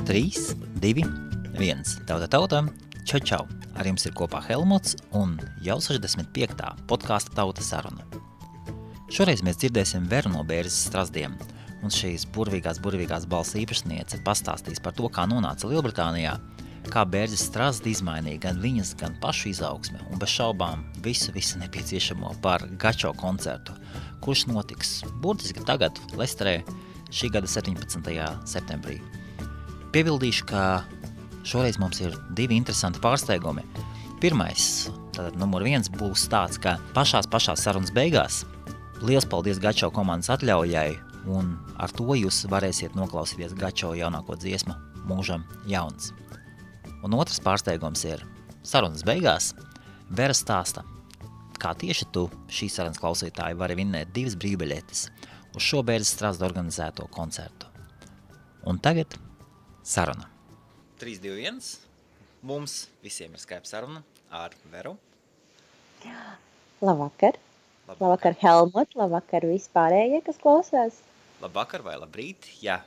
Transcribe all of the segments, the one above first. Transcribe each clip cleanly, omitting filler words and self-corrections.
3, 2, 1. Tauta, čau, čau. Ar jums ir kopā Helmuts un jau 65. podkāsta Tauta saruna. Šoreiz mēs dzirdēsim Veru no Bērzes Strazdiem, un šīs burvīgās balss īpašniece pastāstīs par to, kā nonāca Lielbritānijā, kā Bērzes Strazdi izmainīja gan viņas, gan pašu izaugsme, un bez šaubām visu nepieciešamo par Gačo koncertu, kurš notiks burtiski tagad Lesterē šī gada 17. septembrī. Piebildīšu, ka šoreiz mums ir divi interesanti pārsteigumi. Pirmais, tātad numur 1 būs tāds, ka pašās sarunas beigās liels paldies Gačo komandas atļaujai, un ar to jūs varēsiet noklausīties Gačo jaunāko dziesmu Mūžam jauns. Un otrs pārsteigums ir sarunas beigās Vera stāsta, kā tieši tu, šīs sarunas klausītāji, vari vinnēt 2 brīvbiļetes uz šo Bērzes Strazdu organizēto koncertu. Un tagad saruna. 3, 2, 1. Mums visiem ir Skype saruna ar Veru. Labvakar. Labvakar, Helmut. Labvakar vispārējie, kas klausās. Labvakar vai labrīt. Jā,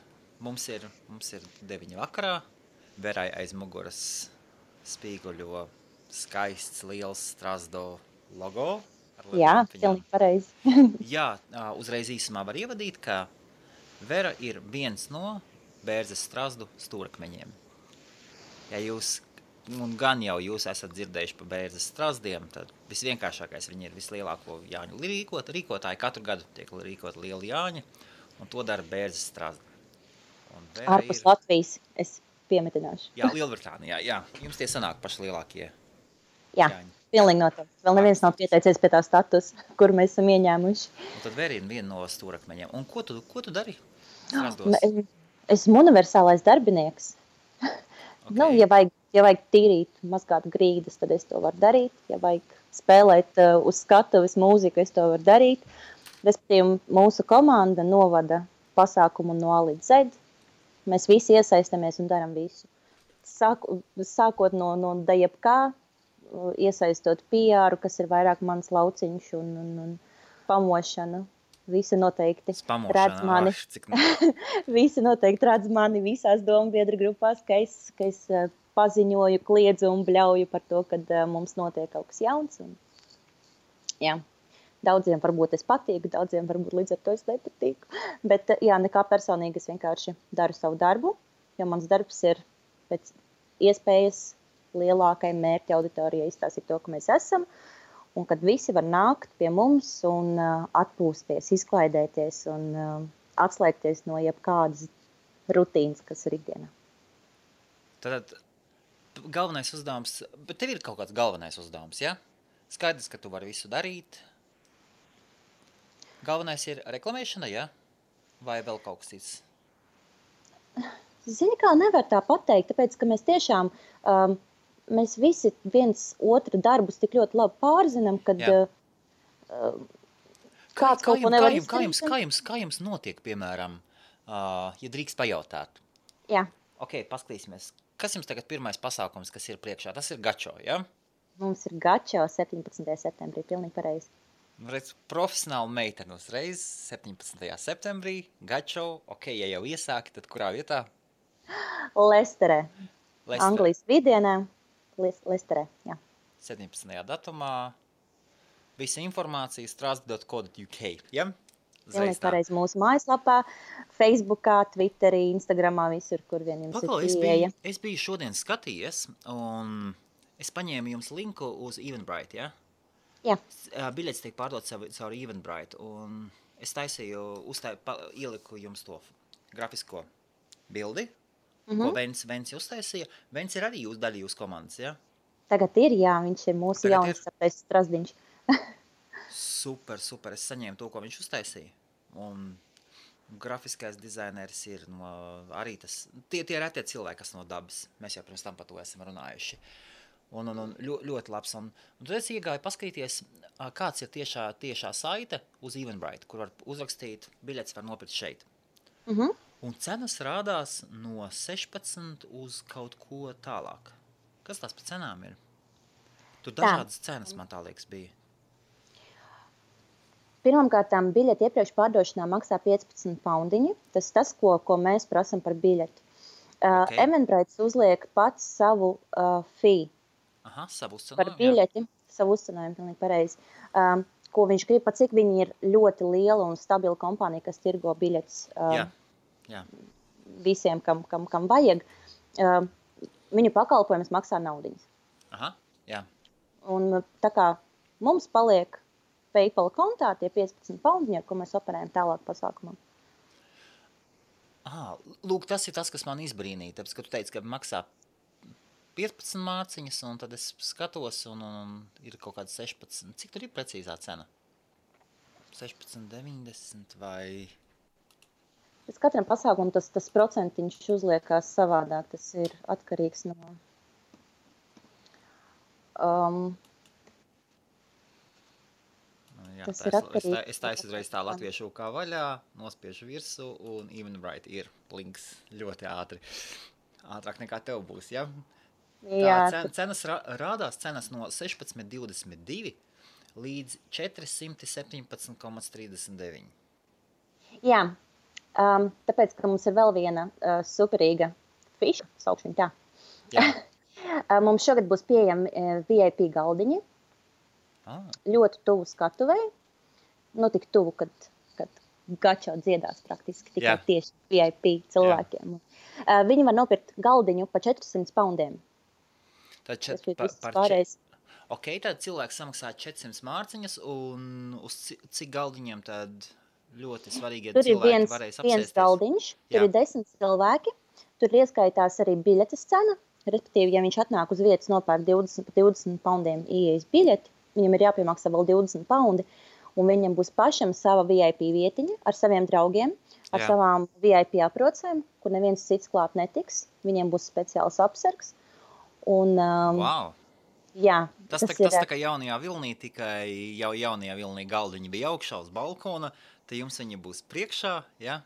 mums ir 9 vakarā. Verai aiz muguras spīguļo skaists, liels Strazdo logo. Jā, pilnīgi pareizi. Jā, uzreiz īsumā var ievadīt, ka Vera ir viens no Bērzes Strazdu stūrakmeņiem. Ja jūs, un gan jau jūs esat dzirdējuši par Bērzes Strazdiem, tad visvienkāršākais viņi ir vislielāko Jāņu rīkotāji. Katru gadu tiek rīkot lieli Jāņi, un to dara Bērzes Strazdi. Ārpus Latvijas, es piemetināšu. Jā, Lielbritānijā, jā. Jums tie sanāk paši lielākie Jāņi. Pilnīgi noteikti. Vēl neviens nav pieteicies pie tā status, kur mēs esam ieņēmuši. Un tad Vera ir viena no stūrakmeņiem. Un ko tu dari Strazdos? Esmu universālais darbinieks. Okay. Ja vajag tīrīt, mazgāt grīdas, tad es to varu darīt. Ja vajag spēlēt uz skatuves mūziku, es to varu darīt. Respektīvi, mūsu komanda novada pasākumu no A līdz Z. Mēs visi iesaistamies un daram visu. Sākot no jebkā, iesaistot PR, kas ir vairāk mans lauciņš un pamošana. Visi noteikti redz mani. Visi noteikti redz mani visās dombiedru grupās, ka es paziņoju, kliedzu un bļauju par to, kad mums notiek kaut kas jauns. Un, jā, daudziem varbūt es patīku, daudziem varbūt līdz ar to es nepatīku. Bet jā, nekā personīgi es vienkārši daru savu darbu, jo mans darbs ir pēc iespējas lielākai mērķa auditorijai izstāstīt to, ka mēs esam. Un kad visi var nākt pie mums un atpūsties, izklaidēties un atslēgties no jebkādas rutīnas, kas ir ikdienā. Tad galvenais uzdevums, bet tev ir kaut kāds galvenais uzdevums, ja? Skaidrs, ka tu vari visu darīt. Galvenais ir reklamēšana, ja? Vai vēl kaut kas cits? Zini, kā nevar tā pateikt, tāpēc, ka mēs tiešām... Mēs visi viens otru darbus tik ļoti labi pārzinām, kad kāds kaut ko nevar izdarīt. Kā jums notiek, piemēram, ja drīkst pajautāt? Jā. Ok, paskatīsimies. Kas jums tagad pirmais pasākums, kas ir priekšā? Tas ir Gačo, ja? Mums ir Gačo 17. septembrī, pilnīgi pareizi. Redz, profesionāli meiteni uzreiz 17. septembrī, Gačo, ok, ja jau iesāki, tad kurā vietā? Lesterē. Anglijas vidienē. Lesterē, jā. 17. datumā. Visa informācija strazdi.co.uk, ja? Pilnīgi pareizi mūsu mājaslapā, Facebookā, Twitterī, Instagramā, visur, kur vien jums ir pieeja. Es biju šodien skatījies, un es paņēmu jums linku uz Eventbrite, ja? Jā. Biļetes tiek pārdot caur Eventbrite, un es ieliku jums to grafisko bildi, ko Vents uztaisīja. Vents ir arī daļa jūsu komandas, ja? Tagad ir, jā, viņš ir mūsu jauns Strazdiņš. Super, es saņēmu to, ko viņš uztaisīja. Un grafiskais dizaineris ir arī tas, tie retie cilvēki, kas no dabas. Mēs jau pirms tam par to esam runājuši. Un ļoti labs. Un tad es iegāju paskatīties, kāds ir tiešā saite uz Eventbrite, kur var uzrakstīt, biļetes var nopirkt šeit. Un cenas rādās no 16 uz kaut ko tālāk. Kas tās par cenām ir? Tur dažādas cenas, man tā liekas, bija. Pirmkārtām biļeti iepriekš pārdošanā maksā 15 poundiņi. Tas, ko mēs prasam par biļeti. Ok. Eventbrite uzliek pats savu fee Aha, savu par uzcenojumu, jā. biļeti, savu uzcenojumu, pilnīgi pareizi. Ko viņš grib, pat cik viņi ir ļoti liela un stabila kompānija, kas tirgo biļetes Jā. visiem, kam vajag. Viņu pakalpojumus maksā naudiņas. Aha, jā. Un tā kā mums paliek PayPal kontā tie 15 poundiņi, ar ko mēs operējam tālāk pasākumam. Aha, lūk, tas ir tas, kas man izbrīnīja, tāpēc, ka tu teici, ka maksā 15 mārciņas, un tad es skatos, un ir kaut kāds 16. Cik tur ir precīzā cena? 16,90 vai... Pēc katram pasākumam tas procentiņš uzliekās savādāk. Tas ir atkarīgs no... Jā, tas ir atkarīgs. Es taisu uzreiz tā latviešu kā vaļā, nospiežu virsu, un Eventbrite ir links ļoti ātri. Ātrāk nekā tev būs, ja? Tā cenas rādās cenas no 16,22 līdz 417,39. Jā, tāpēc, ka mums ir vēl viena superīga fiša, saukšu viņu tā. Jā. Mums šogad būs pieejami VIP galdiņi, ļoti tuvu skatuvei, tik tuvu, kad gačo dziedās praktiski tikai tieši VIP cilvēkiem. Viņi var nopirkt galdiņu pa 400 poundiem. Ok, tad cilvēks samaksā 400 mārciņas, un uz cik galdiņiem tad ļoti svarīgie cilvēki varēs apsēsties? Tur ir viens galdiņš, tur ir 10 cilvēki, tur ieskaitās arī biļetes cena, respektīvi, ja viņš atnāk uz vietas nopērk 20 poundiem ieejas biļeti, viņam ir jāpiemaksā vēl 20 poundi, un viņam būs pašam sava VIP vietiņa ar saviem draugiem, ar savām VIP aprocēm, kur neviens cits klāt netiks, viņiem būs speciāls apsargs. Un, wow! Jā, tas tā kā jaunajā vilnī, tikai jau jaunajā vilnī galdiņi bija augšā uz balkona, tad jums viņi būs priekšā, jā?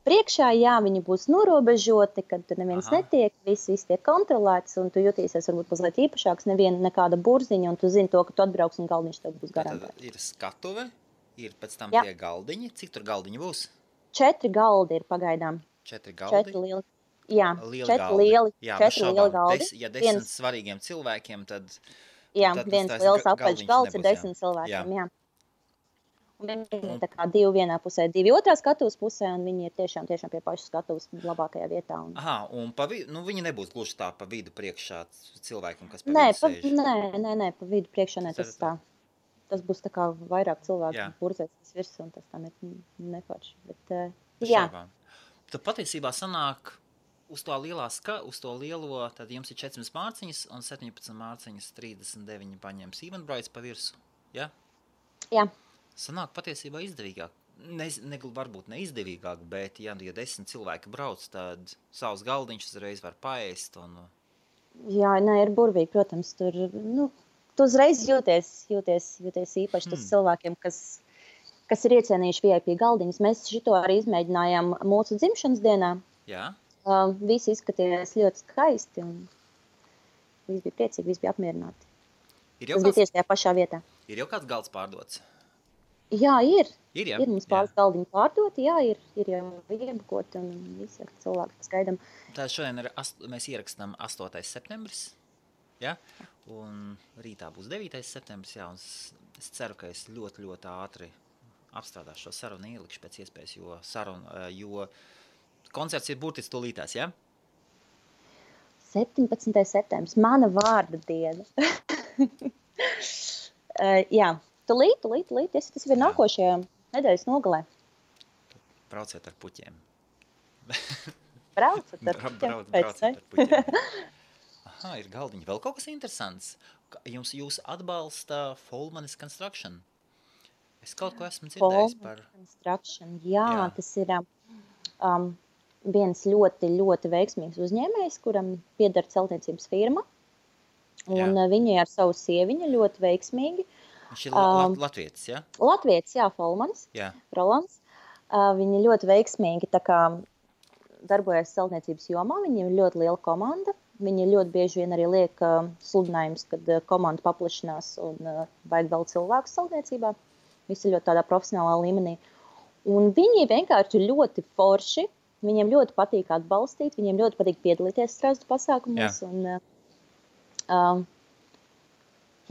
Priekšā, jā, viņi būs norobežoti, kad tur neviens netiek, viss tiek kontrolēts, un tu jutīsies varbūt mazliet īpašāks, nekāda burziņa, un tu zini to, ka tu atbrauks un galdiņš tev būs garantēts. Tad ir skatuve, ir pēc tam tie galdiņi. Cik tur galdiņi būs? 4 galdi ir pagaidām. 4 galdi? 4 lieli. Jā, lieli 4 lieli galdi. Ja 10 svarīgiem cilvēkiem, tad... Jā, viens liels apaļš galds ir 10 cilvēkiem, jā. Un viņi ir tā kā 2 vienā pusē, 2 otrā skatuves pusē, un viņi ir tiešām pie pašas skatuves labākajā vietā. Aha, un viņi nebūs gluži tā pa vidu priekšā cilvēkiem, kas pa vidu sēž? Nē, pa vidu priekšā ne, tas tā. Tas būs tā kā vairāk cilvēku purzēs virs, un tas tam ir neforši. Bet, jā. Tad patiesībā sanāk uz to lielo, tad jums ir 400 mārciņas, un 17 mārciņas 39 paņems Eventbrite pa virsu, ja? Jā. Sanāk patiesībā izdevīgāk. Varbūt neizdevīgāk, bet ja 10 cilvēki brauc, tad savus galdiņus uzreiz var paēst. Jā, ir burvīgi, protams, tur, tu uzreiz jūties īpaši tas cilvēkiem, kas ir iecienījuši VIP galdiņus. Mēs šito arī izmēģinājām mūsu dzimšanas dienā. Jā. Visi izskatījās ļoti skaisti, un visi bija priecīgi, visi bija apmierināti. Tas bija tieši tajā pašā vietā. Ir jau kāds galds pārdots? Jā, ir. Ir mums pāris galdiņi pārdoti, jā, ir jau iebukoti un visi cilvēki, kas gaidām. Tā šodien mēs ierakstām 8. septembris, ja? Un rītā būs 9. septembris, jā, un es ceru, ka es ļoti, ļoti ātri apstrādāšu šo sarunu, ielikšu pēc iespējas, jo koncerts ir burtiski tūlītās, ja? 17. septembris, mana vārda diena. Jā. Tūlīt, tas ir nākošajā nedēļas nogalē. Brauciet ar puķiem. Brauciet ar puķiem. Aha, ir galdiņi. Vēl kaut kas interesants. Jūs atbalsta Folmanis Construction. Es kaut ko esmu dzirdējis par... Construction, jā. Tas ir viens ļoti, ļoti veiksmīgs uzņēmējs, kuram pieder celtniecības firma. Un viņi ar savu sieviņu ļoti veiksmīgi. Viņš ir latvietis, jā? Latvietis, jā, Folmanis, Rolands. Viņi ļoti veiksmīgi tā kā darbojas celtniecības jomā, viņiem ir ļoti liela komanda. Viņi ļoti bieži vien arī liek sludinājums, kad komanda paplašinās un vajag vēl cilvēkus celtniecībā. Visi ļoti tādā profesionālā līmenī. Un viņi vienkārši ļoti forši Viņiem ļoti patīk atbalstīt, viņiem ļoti patīk piedalīties Strazdu pasākumos. Jā. Un,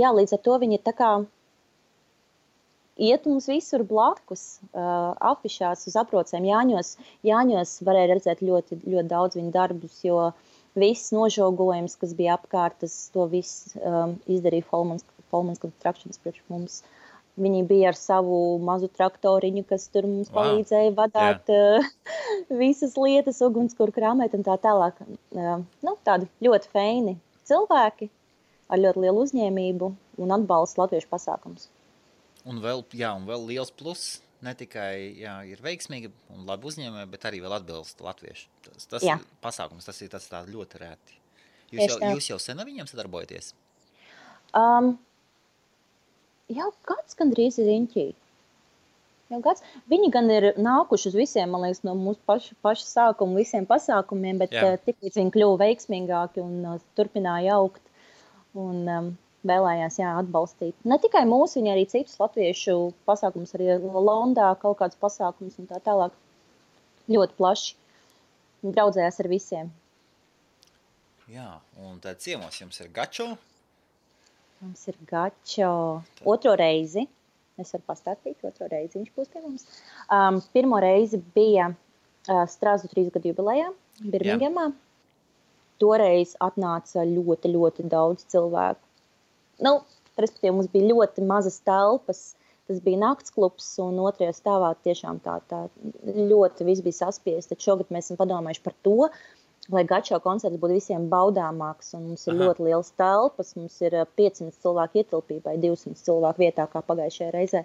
līdz ar to viņi tā kā iet mums visur blakus, afišās uz aprocēm. Jāņos varēja redzēt ļoti, ļoti daudz viņu darbus, jo viss nožogojums, kas bija apkārt, to viss izdarīja Folmans Constructions priekš mums. Viņi bija ar savu mazu traktoriņu, kas tur mums palīdzēja vadāt visas lietas, ugunskura krāmēt un tā tālāk. Tādi ļoti feini cilvēki ar ļoti lielu uzņēmību un atbalstu latviešu pasākums. Un vēl liels pluss, ne tikai ir veiksmīgi un labi uzņēmēji, bet arī vēl atbilst latviešu. Tas pasākums, tas ir tā ļoti rēti. Jūs jau sen ar viņiem sadarbojaties? Jau gads gandrīz ir riņķī. Viņi gan ir nākuši uz visiem, man liekas, no mūsu paša sākuma visiem pasākumiem, bet tiklīdz viņi kļuva veiksmīgāki un turpināja augt un vēlējās atbalstīt. Ne tikai mūsu, viņi arī citus latviešu pasākumus, arī Londā kaut kādus pasākumus un tā tālāk. Ļoti plaši. Draudzējās ar visiem. Jā, un tad ciemos jums ir Gačo? Mums ir Gačo otro reizi. Es varu pastāstīt, otro reizi viņš būs pie mums. Pirmo reizi bija Strazdu 3 gadu jubilejā Birmingemā. Toreiz atnāca ļoti, ļoti daudz cilvēku. Respektīvi, mums bija ļoti mazas telpas. Tas bija naktsklubs un otrajā stāvā tiešām tā ļoti viss bija saspiest. Tad šogad mēs esam padomājuši par to, lai Gačo koncerts būtu visiem baudāmāks, un mums ir ļoti liels telpas, mums ir 500 cilvēku ietilpībai, 200 cilvēku vietā, kā pagājušajā reizē.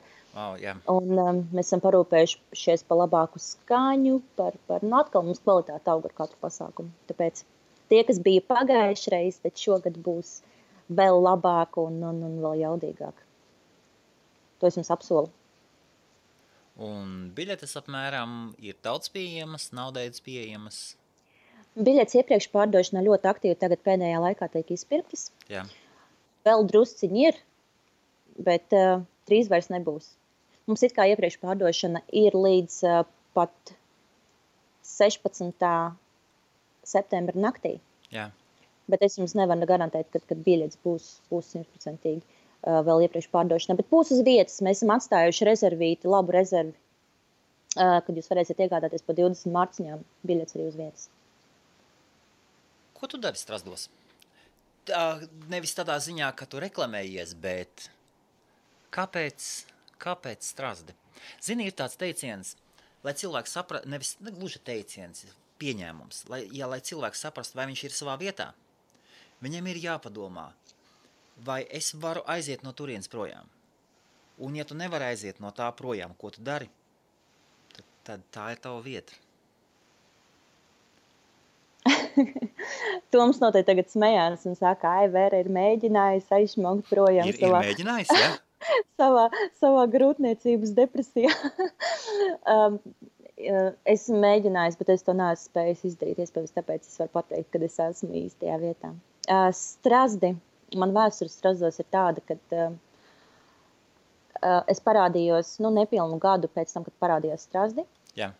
Un mēs esam parūpējušies par labāku skaņu, atkal mums kvalitāte aug ar katru pasākumu. Tāpēc tie, kas bija pagājušreiz, tad šogad būs vēl labāk un vēl jaudīgāk. To es jums apsolu. Un biļetes apmēram ir daudz pieejamas, nav daudz pieejamas? Biļetes iepriekš pārdošanā ļoti aktīvi tagad pēdējā laikā tiek izpirktas. Jā. Vēl drusciņi ir, bet drīz vairs nebūs. Mums it kā iepriekš pārdošana ir līdz pat 16. septembra naktī. Jā. Bet es jums nevaru garantēt, kad biļetes būs 100% vēl iepriekš pārdošanā. Bet būs uz vietas. Mēs esam atstājuši rezervīti, labu rezervi, kad jūs varēsiet iegādāties pa 20 marciņām biļetes arī uz vietas. Ko tu dari Strazdos? Nevis tādā ziņā, ka tu reklamējies, bet kāpēc Strazdi? Zini, ir tāds teiciens, lai cilvēks saprast, nevis gluži teiciens, pieņēmums, lai cilvēks saprast, vai viņš ir savā vietā. Viņam ir jāpadomā, vai es varu aiziet no turienes projām. Un ja tu nevari aiziet no tā projām, ko tu dari, tad tā ir tava vieta. Toms noteikti tagad smējās un saka, Vera ir mēģinājis aizšmaukt projām ir mēģinājis, ja? savā grūtniecības depresijā. Es mēģinājis, bet es to neesmu spējis izdarīt. Iespējams, tāpēc es varu pateikt, kad es esmu īstajā vietā. Strazdi, man vēsture Strazdos ir tāda, kad es parādījos, nepilnu gadu pēc tam, kad parādījos Strazdi. Jā.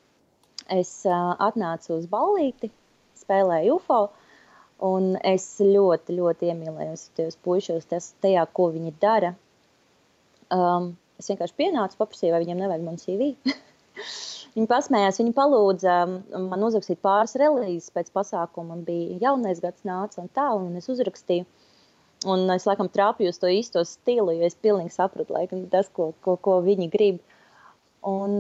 Es atnācu uz ballīti, spēlēju UFO, un es ļoti, ļoti iemīlējos tajos puišos, tajā, ko viņi dara. Es vienkārši pienācu, paprasīju, vai viņiem nevajag man CV. Viņi pasmējās, viņi palūdza man uzrakstīt pāris relīzes pēc pasākuma. Man bija jaunais gads nāca un tā, un es uzrakstīju. Un es laikam trāpīju uz to īsto stilu, jo es pilnīgi sapratu, laikam, tas, ko viņi grib. Un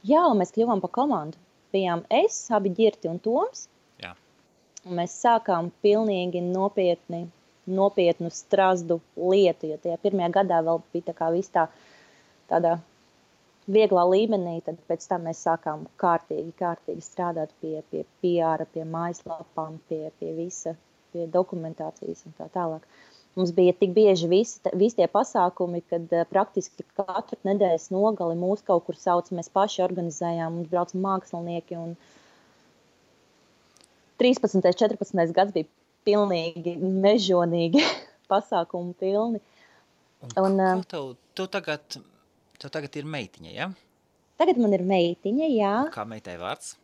mēs kļuvām pa komandu. Bijām es, abi Ģirti un Toms. Jā. Un mēs sākām pilnīgi nopietnu Strazdu lietu, jo tajā pirmajā gadā vēl bija tā kā viss tādā vieglā līmenī, tad pēc tam mēs sākām kārtīgi strādāt pie PR, pie mājaslapām, pie visa, pie dokumentācijas un tā tālāk. Mums bija tik bieži visi tie pasākumi, kad praktiski katru nedēļas nogali mūs kaut kur sauc, mēs paši organizējām, mums brauca mākslinieki un 13. 14. gads bija pilnīgi mežonīgi pasākumu pilni. Un tev tagad ir meitiņa, ja? Tagad man ir meitiņa, jā. Kā meitai vārds?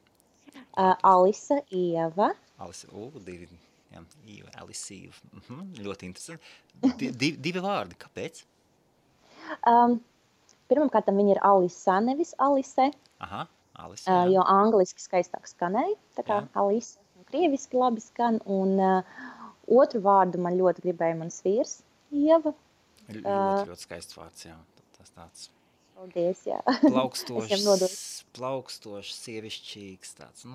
Alisa, Ieva. Alisa, divi, jā, Ieva, Alisa, Ieva. Ļoti interesanti. Divi vārdi, kāpēc? Pirmkārt, viņa ir Alisa, nevis Alise. Aha, Alisa, jā. Jo angliski skaistāk skanēja, tā kā Jā. Alisa, un krieviski labi skan, un otru vārdu man ļoti gribēja mans vīrs, Ieva. Ļoti skaists vārds, jā. Tas tāds Paldies, jā. plaukstošs, sievišķīgs, tāds,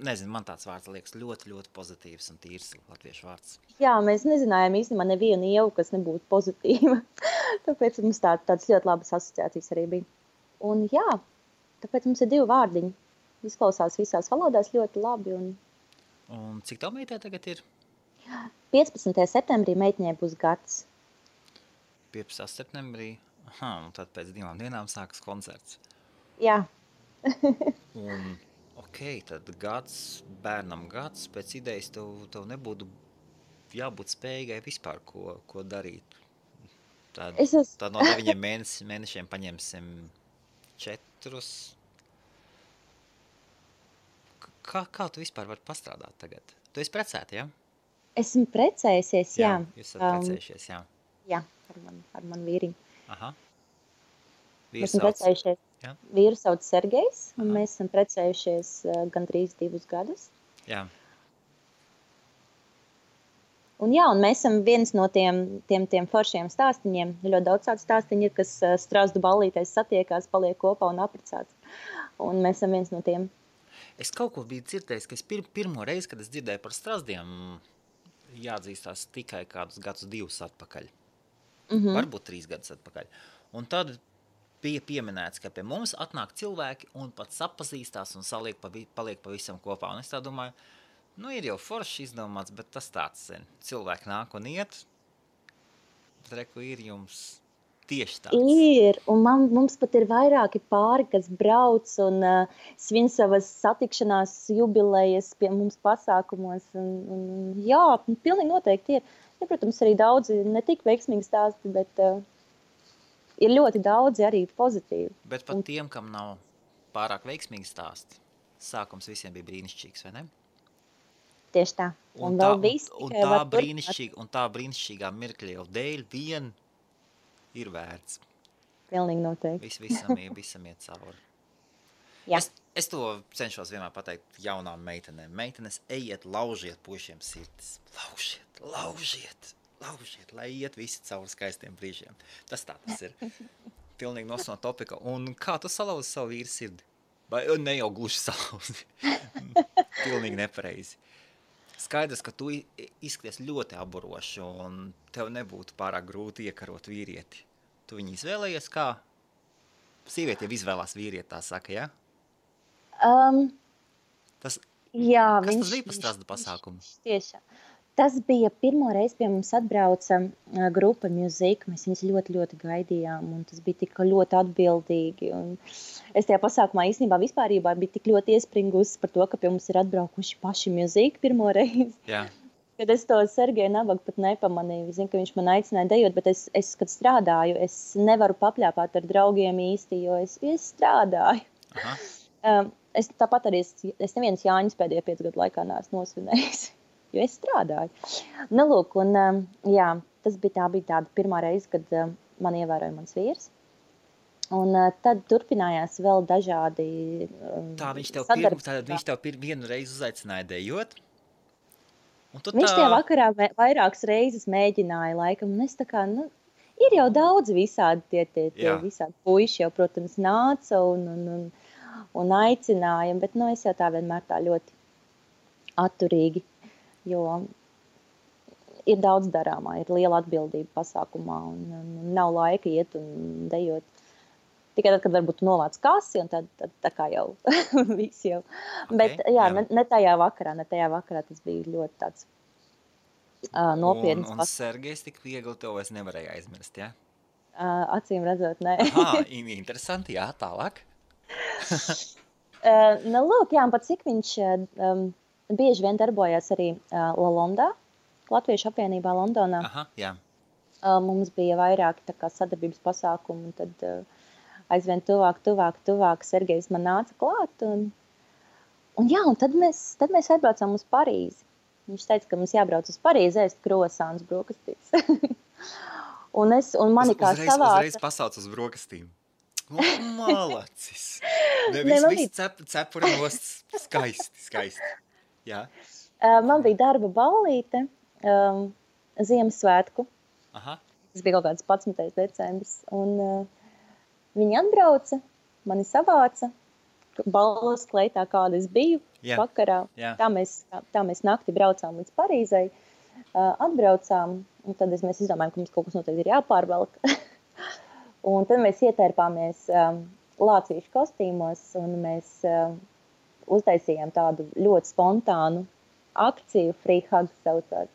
nezinu, man tāds vārds liekas ļoti, ļoti pozitīvs un tīrs latviešu vārds. Jā, mēs nezinājām īstenībā nevienu Ievu, kas nebūtu pozitīva, tāpēc mums tāds ļoti labas asociācijas arī bija. Un jā, tāpēc mums ir 2 vārdiņi. Izklausās visās valodās ļoti labi. Un cik tev meitē tagad ir? 15. septembrī meitiņai būs gads. 15. septembrī? Aha, un tad pēc 2 dienām sākas koncerts. Jā. Un, tad bērnam gads, pēc idejas tev nebūtu jābūt spējīgai vispār ko darīt. Tad no 9 mēnešiem paņemsim 4. Kā tu vispār vari pastrādāt tagad? Tu esi precēta, jā? Esmu precējusies, jā. Jūs esat precējušies, jā. Jā, ar manu vīriņu. Aha. Mēs esam precējušies. Jā. Vīru sauc Sergejs, un mēs esam precējušies gandrīz 2 gadus. Jā. Un mēs esam viens no tiem foršiem stāstiņiem. Ļoti daudz tādu stāstiņu ir, kas Strazdu ballītēs satiekās, paliek kopā un apprecāts. Un mēs esam viens no tiem. Es kaut ko biju dzirdējis, ka es pirmo reizi, kad es dzirdēju par Strazdiem, jāatzīstās tikai kādus gadus 2 atpakaļ. Varbūt 3 gadus atpakaļ. Un tad bija pieminēts, ka pie mums atnāk cilvēki un pat sapazīstās un paliek pavisam kopā. Un es tā domāju, ir jau forši izdomāts, bet tas tāds, cilvēki nāk un iet, bet reku ir jums tieši tāds. Ir, un mums pat ir vairāki pāri, kas brauc un svin savas satikšanās jubilejas pie mums pasākumos. Jā, pilnīgi noteikti ir. Ja, protams, arī daudzi ne tik veiksmīgi stāsti, bet ir ļoti daudzi arī pozitīvi. Bet pat tiem, kam nav pārāk veiksmīgi stāsti, sākums visiem bija brīnišķīgs, vai ne? Tieši tā. Un tā brīnišķīgā mirkļa jau dēļ vien ir vērts. Pilnīgi noteikti. Visam iet cauri. Jā. Es to cenšos vienmēr pateikt jaunām meitenēm. Meitenes, ejiet, laužiet puišiem sirdis. Laužiet, lai iet visi cauri skaistiem brīžiem. Tas ir. Pilnīgi no topika. Un kā tu salauzi savu vīru sirdi? Vai ne jau gluži salauzi? Pilnīgi nepareizi. Skaidrs, ka tu izskaties ļoti aburoši un tev nebūtu pārāk grūti iekarot vīrieti. Tu viņu izvēlējies kā? Sieviete jau izvēlās vīrieti, tā saka, ja? Tas bija par Strazdu pasākumu? Tiešām. Tas bija pirmo reizi pie mums atbrauca grupa Music. Mēs viņus ļoti, ļoti gaidījām, un tas bija tik ļoti atbildīgi. Un es tajā pasākumā īstenībā vispārībā biju tik ļoti iespringusi par to, ka pie mums ir atbraukuši paši Music pirmo reizi. Jā. Kad es to Sergeju Nabagu pat nepamanīju. Es zinu, ka viņš man aicināja dejot, bet es kad strādāju, es nevaru papļāpāt ar draugiem īsti, jo es strādāju. Aha. Es tāpat arī, es nevienas Jāņas pēdējo 5 gadu laikā neesmu nosvinējis, jo es strādāju. Lūk, un jā, tā bija tāda pirmā reize, kad man ievēroja mans vīrs. Un tad turpinājās vēl dažādi viņš tev vienu reizi uzaicināja dejot? Viņš tajā vakarā vairākas reizes mēģināja laikam, un es tā kā, ir jau daudz visādi tie visādi puiši jau, protams, nāca un aicināja, bet es jau tā vienmēr tā ļoti atturīgi, jo ir daudz darāmā, ir liela atbildība pasākumā un nav laika iet un dejot. Tikai tad, kad varbūt nolāc kasi, un tad tā kā jau viss jau. Okay, bet jā. Ne tajā vakarā tas bija ļoti tāds nopietns. Un Sergejs tik viegli to es nevarēju aizmirst, jā? Acīm redzot, ne. Aha, interesanti, jā, tālāk. Lūk, jā, un pat cik viņš bieži vien darbojās arī La Londā, Latviešu apvienībā Londonā. Aha, jā. Mums bija vairāki tā kā sadarbības pasākumi, un tad aizvien tuvāk Sergejs man nāca klāt, Un tad mēs atbraucām uz Parīzi. Viņš teica, ka mums jābrauc uz Parīzi ēst krosāns brokastīs. un mani kā savāca... Uzreiz pasauc uz brokastīm. Malacis. Viss cepura nost skaisti. Jā. Man bija darba ballīte Ziemassvētku. Aha. Tas bija kaut kāds 11. decembris. Un viņi atbrauca, mani savāca. Balvas kleitā, kāda es biju vakarā. Jā. Tā mēs nakti braucām līdz Parīzei. Atbraucām, un tad mēs izdomājām, ka mums kaut kas noteikti ir jāpārvelk. Un tad mēs ietērpāmies lācīšu kostīmos, un mēs uztaisījām tādu ļoti spontānu akciju, Free Hugs saucās.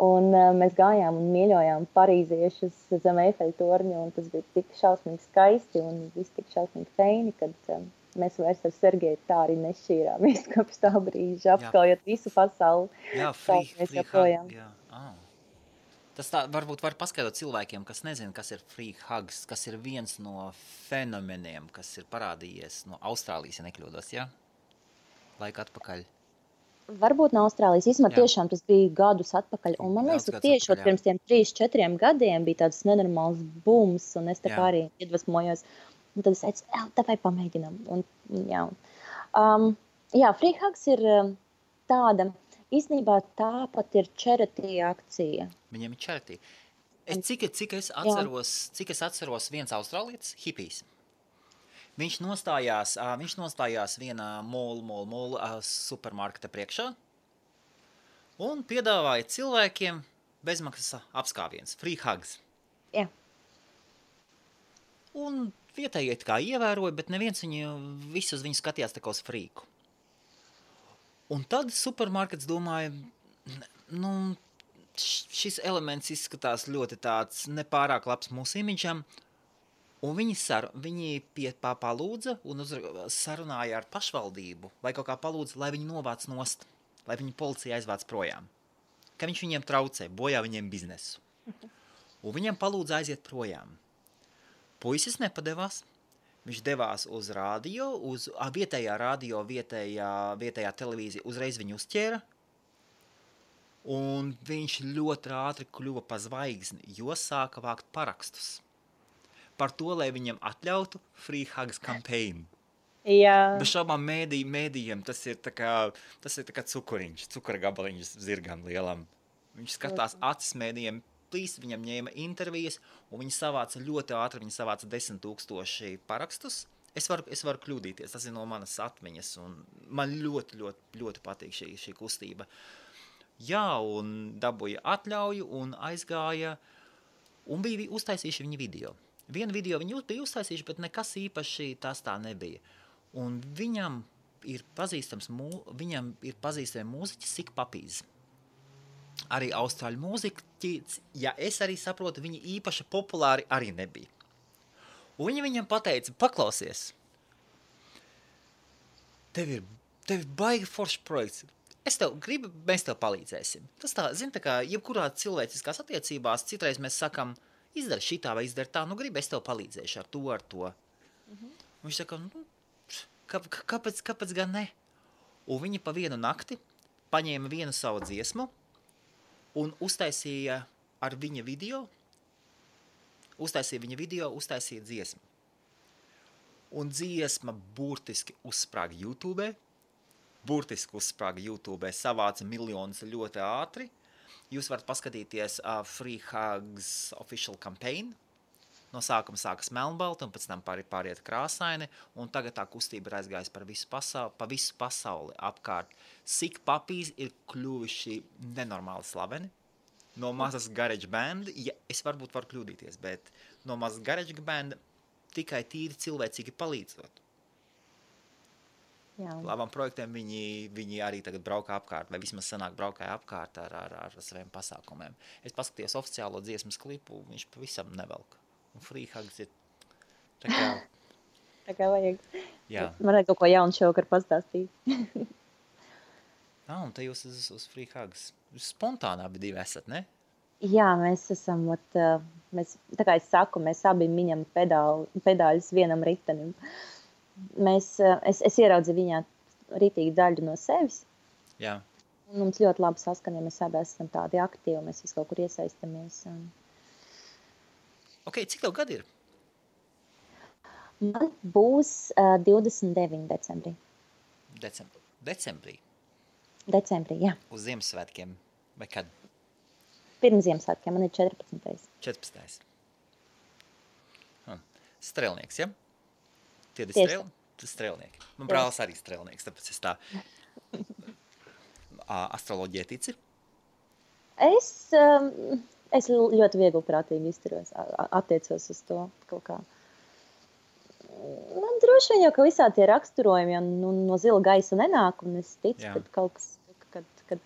Un mēs gājām un mīļojām parīziešus zem Eifeļa torņa, un tas bija tik šausmīgi skaisti un viss tik šausmīgi feini, kad mēs vairs ar Sergeju tā arī nešķīrāmies kopš tā brīža, apskaujot visu pasauli. Jā, Free Hug, jā. Tas tā varbūt var paskaidrot cilvēkiem, kas nezina, kas ir Free Hugs, kas ir viens no fenomeniem, kas ir parādījies no Austrālijas, ja nekļūdos, jā? Laika atpakaļ. Varbūt no Austrālijas. Īsumā tiešām tas bija gadus atpakaļ. Un man liekas, ka tieši pirms tiem 3-4 gadiem bija tāds nenormāls bums, un es tā kā arī iedvesmojos. Un tad es teicu, tāpēc pamēģinām. Free Hugs ir tāda, īstenībā tāpat ir charity akcija. Viņiem ir charity. Cik es atceros viens austrālietis, hipijs. Viņš nostājās vienā mall supermarketa priekšā un piedāvāja cilvēkiem bezmaksas apskāviens, Free Hugs. Jā. Un vietējie kā ievēroja, bet neviens visus viņu skatījās tā kā uz frīku. Un tad supermarkets domāja, šis elements izskatās ļoti tāds nepārāk labs mūsu imidžam, un viņi palūdza un sarunāja ar pašvaldību, vai kaut kā palūdza, lai viņi novāc nost, lai viņi policija aizvāc projām. Ka viņš viņiem traucē, bojā viņiem biznesu. Un viņiem palūdza aiziet projām. Puisis nepadevās, viņš devās uz radio, uz vietējā radio, vietējā televīzija, uzreiz viņu uzķēra, un viņš ļoti ātri kļuva pa zvaigzni, jo sāka vākt parakstus par to, lai viņam atļautu Free Hugs campaign. Jā. Bez šaubām mēdījiem tas ir tā kā cukura gabaliņš zirgam lielam. Viņš skatās acis mēdījiem, viņam ņēma intervijas, un viņi savāca ļoti ātri, 10 000 parakstus. Es varu kļūdīties, tas ir no manas atmiņas, un man ļoti, ļoti, ļoti patīk šī kustība. Jā, un dabūja atļauju, un aizgāja, un bija uztaisījuši viņi video. Vienu video viņi bija uztaisījuši, bet nekas īpaši tas tā nebija. Un viņam ir pazīstami mūziķis Sick Puppies. Arī austrāļu mūziķi, ja es arī saprotu, viņi īpaši populāri arī nebija. Un viņi viņam pateica, paklausies, tev ir baigi foršs projekts. Mēs tev palīdzēsim. Tas tā, tā kā jebkurā cilvēciskās attiecībās, citreiz mēs sakam, izdara šitā vai izdara tā, gribi, es tev palīdzēšu ar to. Un viņš saka, kāpēc gan ne? Un viņi pa vienu nakti paņēma vienu savu dziesmu un uztaisīja viņa video, uztaisīja dziesmu. Un dziesma burtiski uzsprāga YouTube, savāca miljonus ļoti ātri. Jūs varat paskatīties Free Hugs official campaign. No sākuma sākas melnbalti, un pēc tam pāriet krāsaini, un tagad tā kustība ir aizgājusi pa visu pasauli apkārt. Sick Puppies ir kļuvuši nenormāli slaveni. No mazas garage band, es varbūt varu kļūdīties, bet no mazas garage band tikai tīri cilvēcīgi palīdzot. Jā. Labām projektiem viņi arī tagad braukā apkārt, vai vismaz sanāk braukāja apkārt ar saviem pasākumiem. Es paskatījos oficiālo dziesmas klipu, viņš pavisam nevelk. Un Free Hugs ir tā kā vajag. Jā. Man vajag kaut ko jaunu šovakar pastāstīt. Un te jūs uz Free Hugs. Spontānā divi esat, ne? Jā, mēs esam, tā kā es saku, mēs abi miņam pedāļus vienam ritenim. Es ieraudzīju viņā rītīgi daļu no sevis. Jā. Un mums ļoti labi saskana, ja mēs abi esam tādi aktīvi, mēs visi kaut kur iesaistamies. Ok, cik tev gadi ir? Man būs 29 decembrī. Decembrī? Decembrī, jā. Uz Ziemassvētkiem? Vai kad? Pirms Ziemassvētkiem, man ir 14. 14. Strēlnieks, ja? Tie ir strēlnieki. Man brālis arī strēlnieks, tāpēc es tā astroloģijai tici. Es ļoti vieglprātīgi izturos, attiecos uz to kaut kā. Man droši vien jau, ka visā tie raksturojumi no zila gaisa nenāk, un es ticu, kad kaut kas, kad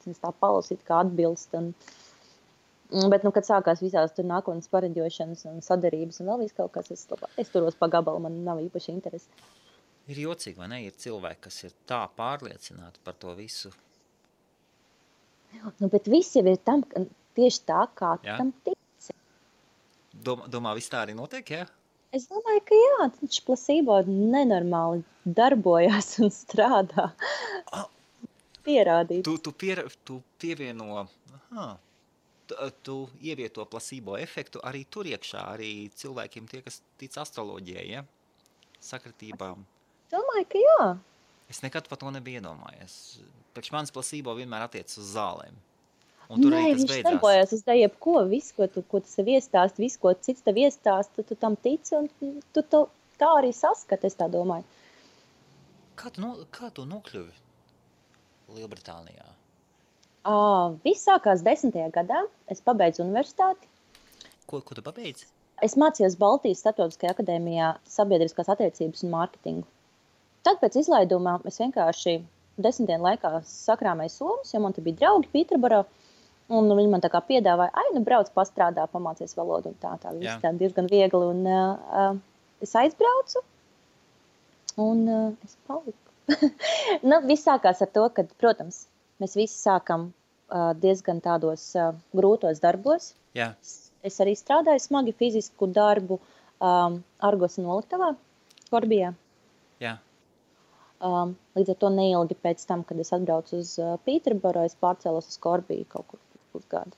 es tā palasītu, kā atbilst. Bet, kad sākās visās tur nākotnes pareģošanas un sadarības un vēl viss kaut kas, es turos pa gabalu, man nav īpaši interesi. Ir jocīgi, vai ne? Ir cilvēki, kas ir tā pārliecināti par to visu. Bet viss jau ir tieši tā, kā tam tici. Domā, viss tā arī notiek, jā? Es domāju, ka jā, taču plasībo nenormāli darbojās un strādā. Pierādīt. Tu pievieno, tu ievieto plasībo efektu arī tur iekšā, arī cilvēkiem tie, kas tic astroloģijai, ja? Sakritībām. Domāju, ka jā. Es nekad par to nebiju iedomājies. Priekš mans plasībo vienmēr attiec uz zālēm. Nē, viņš darbojas uz jebko, visu, ko tu sev iestāsti, visu, ko cits tev iestāsti, tu tam tici, un tu tā arī saskati, es tā domāju. Kā tu nokļuvi Lielbritānijā? Viss sākās 10. gadā, es pabeidzu universitāti. Ko tu pabeidzi? Es mācījos Baltijas Starptautiskajā akadēmijā sabiedriskās attiecības un mārketingu. Tad pēc izlaidumā es vienkārši 10 dienu laikā sakrāmēju somas, jo man te bija draugi Pīterboro. Un viņi man tā kā piedāvāja, brauc pastrādā, pamācies valodu un tā viss tā diezgan viegli. Un es aizbraucu un es paliku. Viss sākās ar to, ka, protams, mēs visi sākam diezgan tādos grūtos darbos. Jā. Es arī strādāju smagi fizisku darbu Argos noliktavā, Korbijā. Jā. Līdz ar to neilgi pēc tam, kad es atbraucu uz Pīterboro, es pārcēlos uz Korbiju kaut kur pusgadu.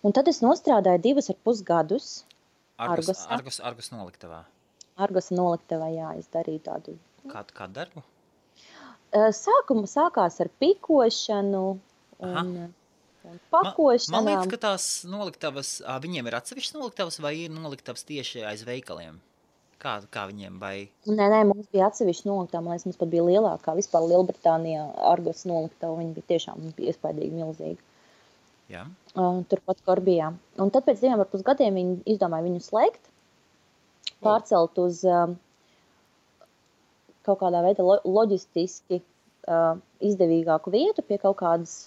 Un tad es nostrādāju 2,5 gadus Argosā. Argos noliktavā? Argos noliktavā, jā, es darīju tādu. Kādu darbu? Sākās ar pikošanu un pakošanām. Man liekas, ka tās noliktavas, viņiem ir atsevišķas noliktavas vai ir noliktavas tieši aiz veikaliem? Kā viņiem vai? Nē, mums bija atsevišķi noliktava, man liekas, mums pat bija lielākā vispār Lielbritānijā Argos noliktava, viņi bija tiešām iespaidīgi milzīgi. Jā. Turpat Korbijā. Un tad pēc 2,5 gadiem viņi izdomāja viņu slēgt, pārcelt uz kaut kādā veidā loģistiski izdevīgāku vietu pie kaut kādas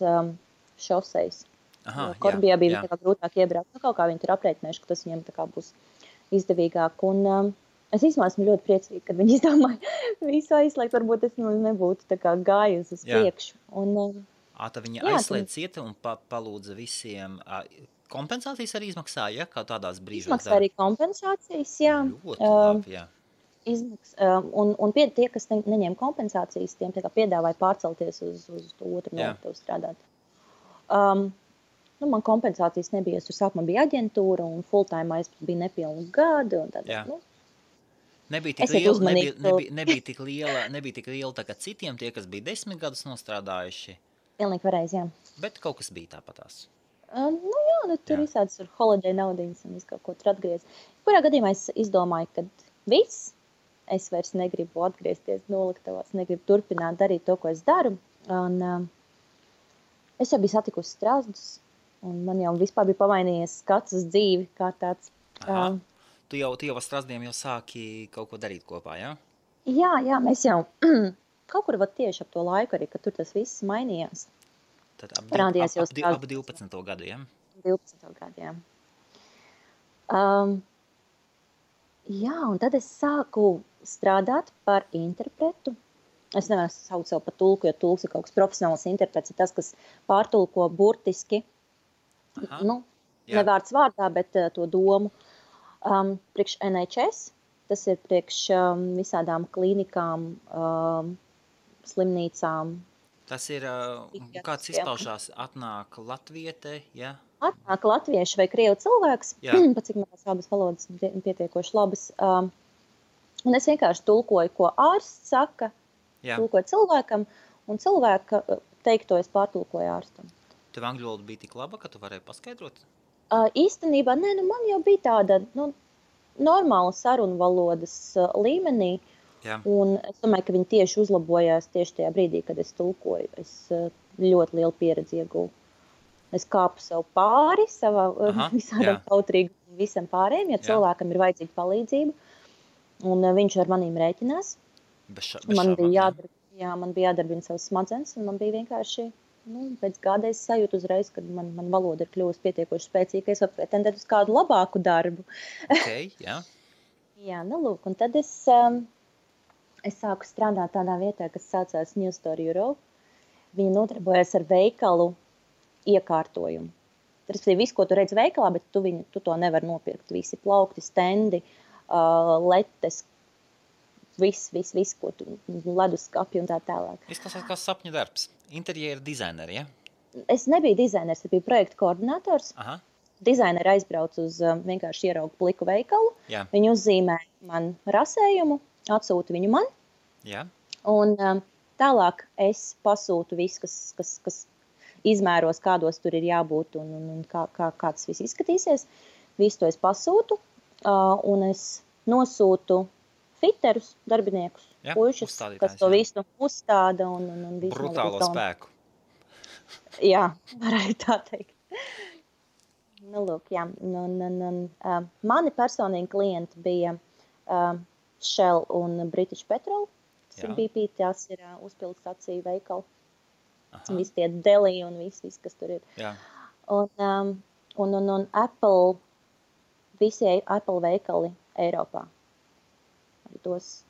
šosejas. Korbijā bija tā kā grūtāk iebraukt, kaut kā viņi tur aprēķinājuši, ka tas viņiem tā kā būs izdevīgāk. Un es īstenībā esmu ļoti priecīga, kad viņi izdomāja visu aizslēgt, varbūt es nebūtu tā kā gājusi uz priekšu. Tad viņi aizslēdz cieta un palūdza visiem kompensācijas arī izmaksāja, kā tādās brīžos? Izmaksā arī kompensācijas, jā. Ļoti labi, jā. Un tie, kas neņem kompensācijas, tiem tā kā piedāvāja pārcelties uz to otru noliktavu strādāt. Man kompensācijas nebija, es tur sākumā bija aģentūra un full-time bija nepilnu gadu. Un tad, Nebija tik liela tā kā citiem, tie, kas bija 10 gadus nostrādājuši. Pilnīgi pareizi, jā. Bet kaut kas bija tāpatās. Tur visādas ir holiday naudiņas un visu kaut ko tur atgriez. Kurā gadījumā es izdomāju, ka viss, es vairs negribu atgriezties noliktavās, negribu turpināt darīt to, ko es daru. Un es jau biju satikusi strazdus, un man jau vispār bija pamainījies skats uz dzīvi kā tāds. Tu jau ar strazdiem jau sāki kaut ko darīt kopā, jā? Jā, mēs jau kaut kur tieši ap to laiku arī, kad tur tas viss mainījās. Tad ap 12. gadu, jā? 12. gadu, jā. Un tad es sāku strādāt par interpretu. Es nevaru saukt sev par tulku, jo tulks ir kaut kas profesionāls interprets, ir tas, kas pārtulko burtiski, ne vārds vārdā, bet to domu. Priekš NHS, tas ir priekš visādām klīnikām, slimnīcām. Tas ir, kāds izpaušās, atnāk latviete, ja? Atnāk latviešu vai krievu cilvēks, pat cik manas abas valodas pietiekoši labas. Un es vienkārši tulkoju, ko ārsts saka, tulkoju cilvēkam, un cilvēka teikto es pārtulkoju ārstam. Tev angļu valoda bija tik laba, ka tu varēji paskaidrot? Īstenībā, nē, man jau bija tāda normāla sarunu valodas līmenī, un es domāju, ka viņi tieši uzlabojās tieši tajā brīdī, kad es tulkoju. Es ļoti lielu pieredzi ieguvu. Es kāpu sev pāri, savā visādām kautrīgi visam pārējiem, ja cilvēkam ir vajadzīga palīdzība, un viņš ar manīm rēķinās. Man bija jādarbina savas smadzenes, un man bija vienkārši, pēc gada es sajūtu uzreiz, kad man valoda ir kļuvusi pietiekoši spēcīga, es varu pretendēt uz kādu labāku darbu. Lūk, un tad es sāku strādāt tādā vietā, kas saucās New Store Europe. Viņa nodarbojas ar veikalu iekārtojumu. Tas ir viss, ko tu redz veikalā, bet tu to nevar nopirkt. Visi plaukti, stendi, letes, viss, ko tu leduskapi un tā tālāk. Izklausās kā sapņu darbs. Interjera dizaineri, ja? Es nebiju dizainers, es biju projekta koordinators. Dizaineri aizbrauc uz vienkārši ieraugu pliku veikalu. Viņi uzzīmē man rasējumu, atsūta viņu man. Un tālāk es pasūtu visu, kas izmēros, kādos tur ir jābūt un kā tas viss izskatīsies. Visu to es pasūtu un es nosūtu fiterus, darbiniekus, puišus, kas to visu uzstāda. Un visu brutālo spēku. Jā, var arī tā teikt. Lūk, jā. Mani personīgi klienti bija Shell un British Petrol. Tas ir BP, tās ir uzpildes staciju veikali. Visi tie deli un viss, kas tur ir. Un Apple, visi Apple veikali Eiropā. Tos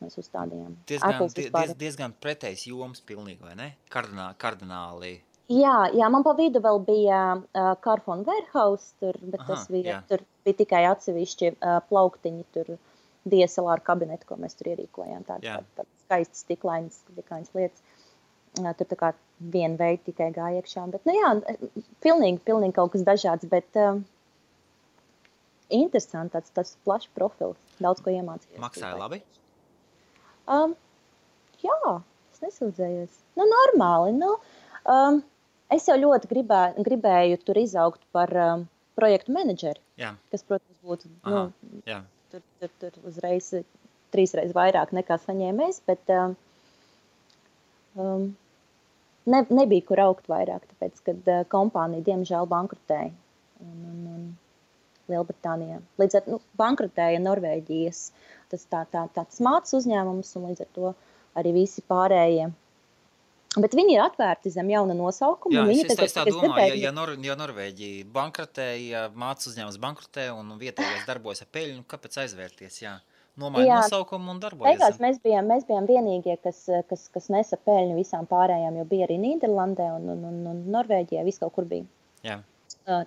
mēs uzstādījām. Diezgan pretējs joms pilnīgi, vai ne? Kardināli. Jā, man pa vidu vēl bija Carphone Warehouse, bet tas bija, tur bija tikai atsevišķi plauktiņi, tur DSLR kabineti, ko mēs tur ierīkojām. Tādas skaistas stiklainas lietas. Tur tā kā viena veida tikai gāja iekšā. Bet, pilnīgi kaut kas dažāds, bet interesanti, tāds plašs profils. Daudz ko iemācījos. Maksāja labi? Jā, es nesūdzējos. Normāli. Es jau ļoti gribēju tur izaugt par projektu menedžeri, kas, protams, būtu tur uzreiz 3 reizes vairāk nekā saņēmējs, bet nebija kur augt vairāk, tāpēc, kad kompānija diemžēl bankrotēja un Lielbritānijā. Līdz ar bankrotēja Norvēģijas tāds mācas uzņēmums un līdz ar to arī visi pārējie. Bet viņi ir atvērti zem jauna nosaukuma. Jā, es tā domāju, ja Norvēģija bankrotēja, mācas uzņēmums bankrotē un vietējais darbojas ar peļņu, kāpēc aizvērties, nomaina nosaukumu un darbojas. Beigās mēs bijām vienīgie, kas nesa peļņu visām pārējām, jo bija arī Nīderlandē un Norvēģijā, viss kaut kur bija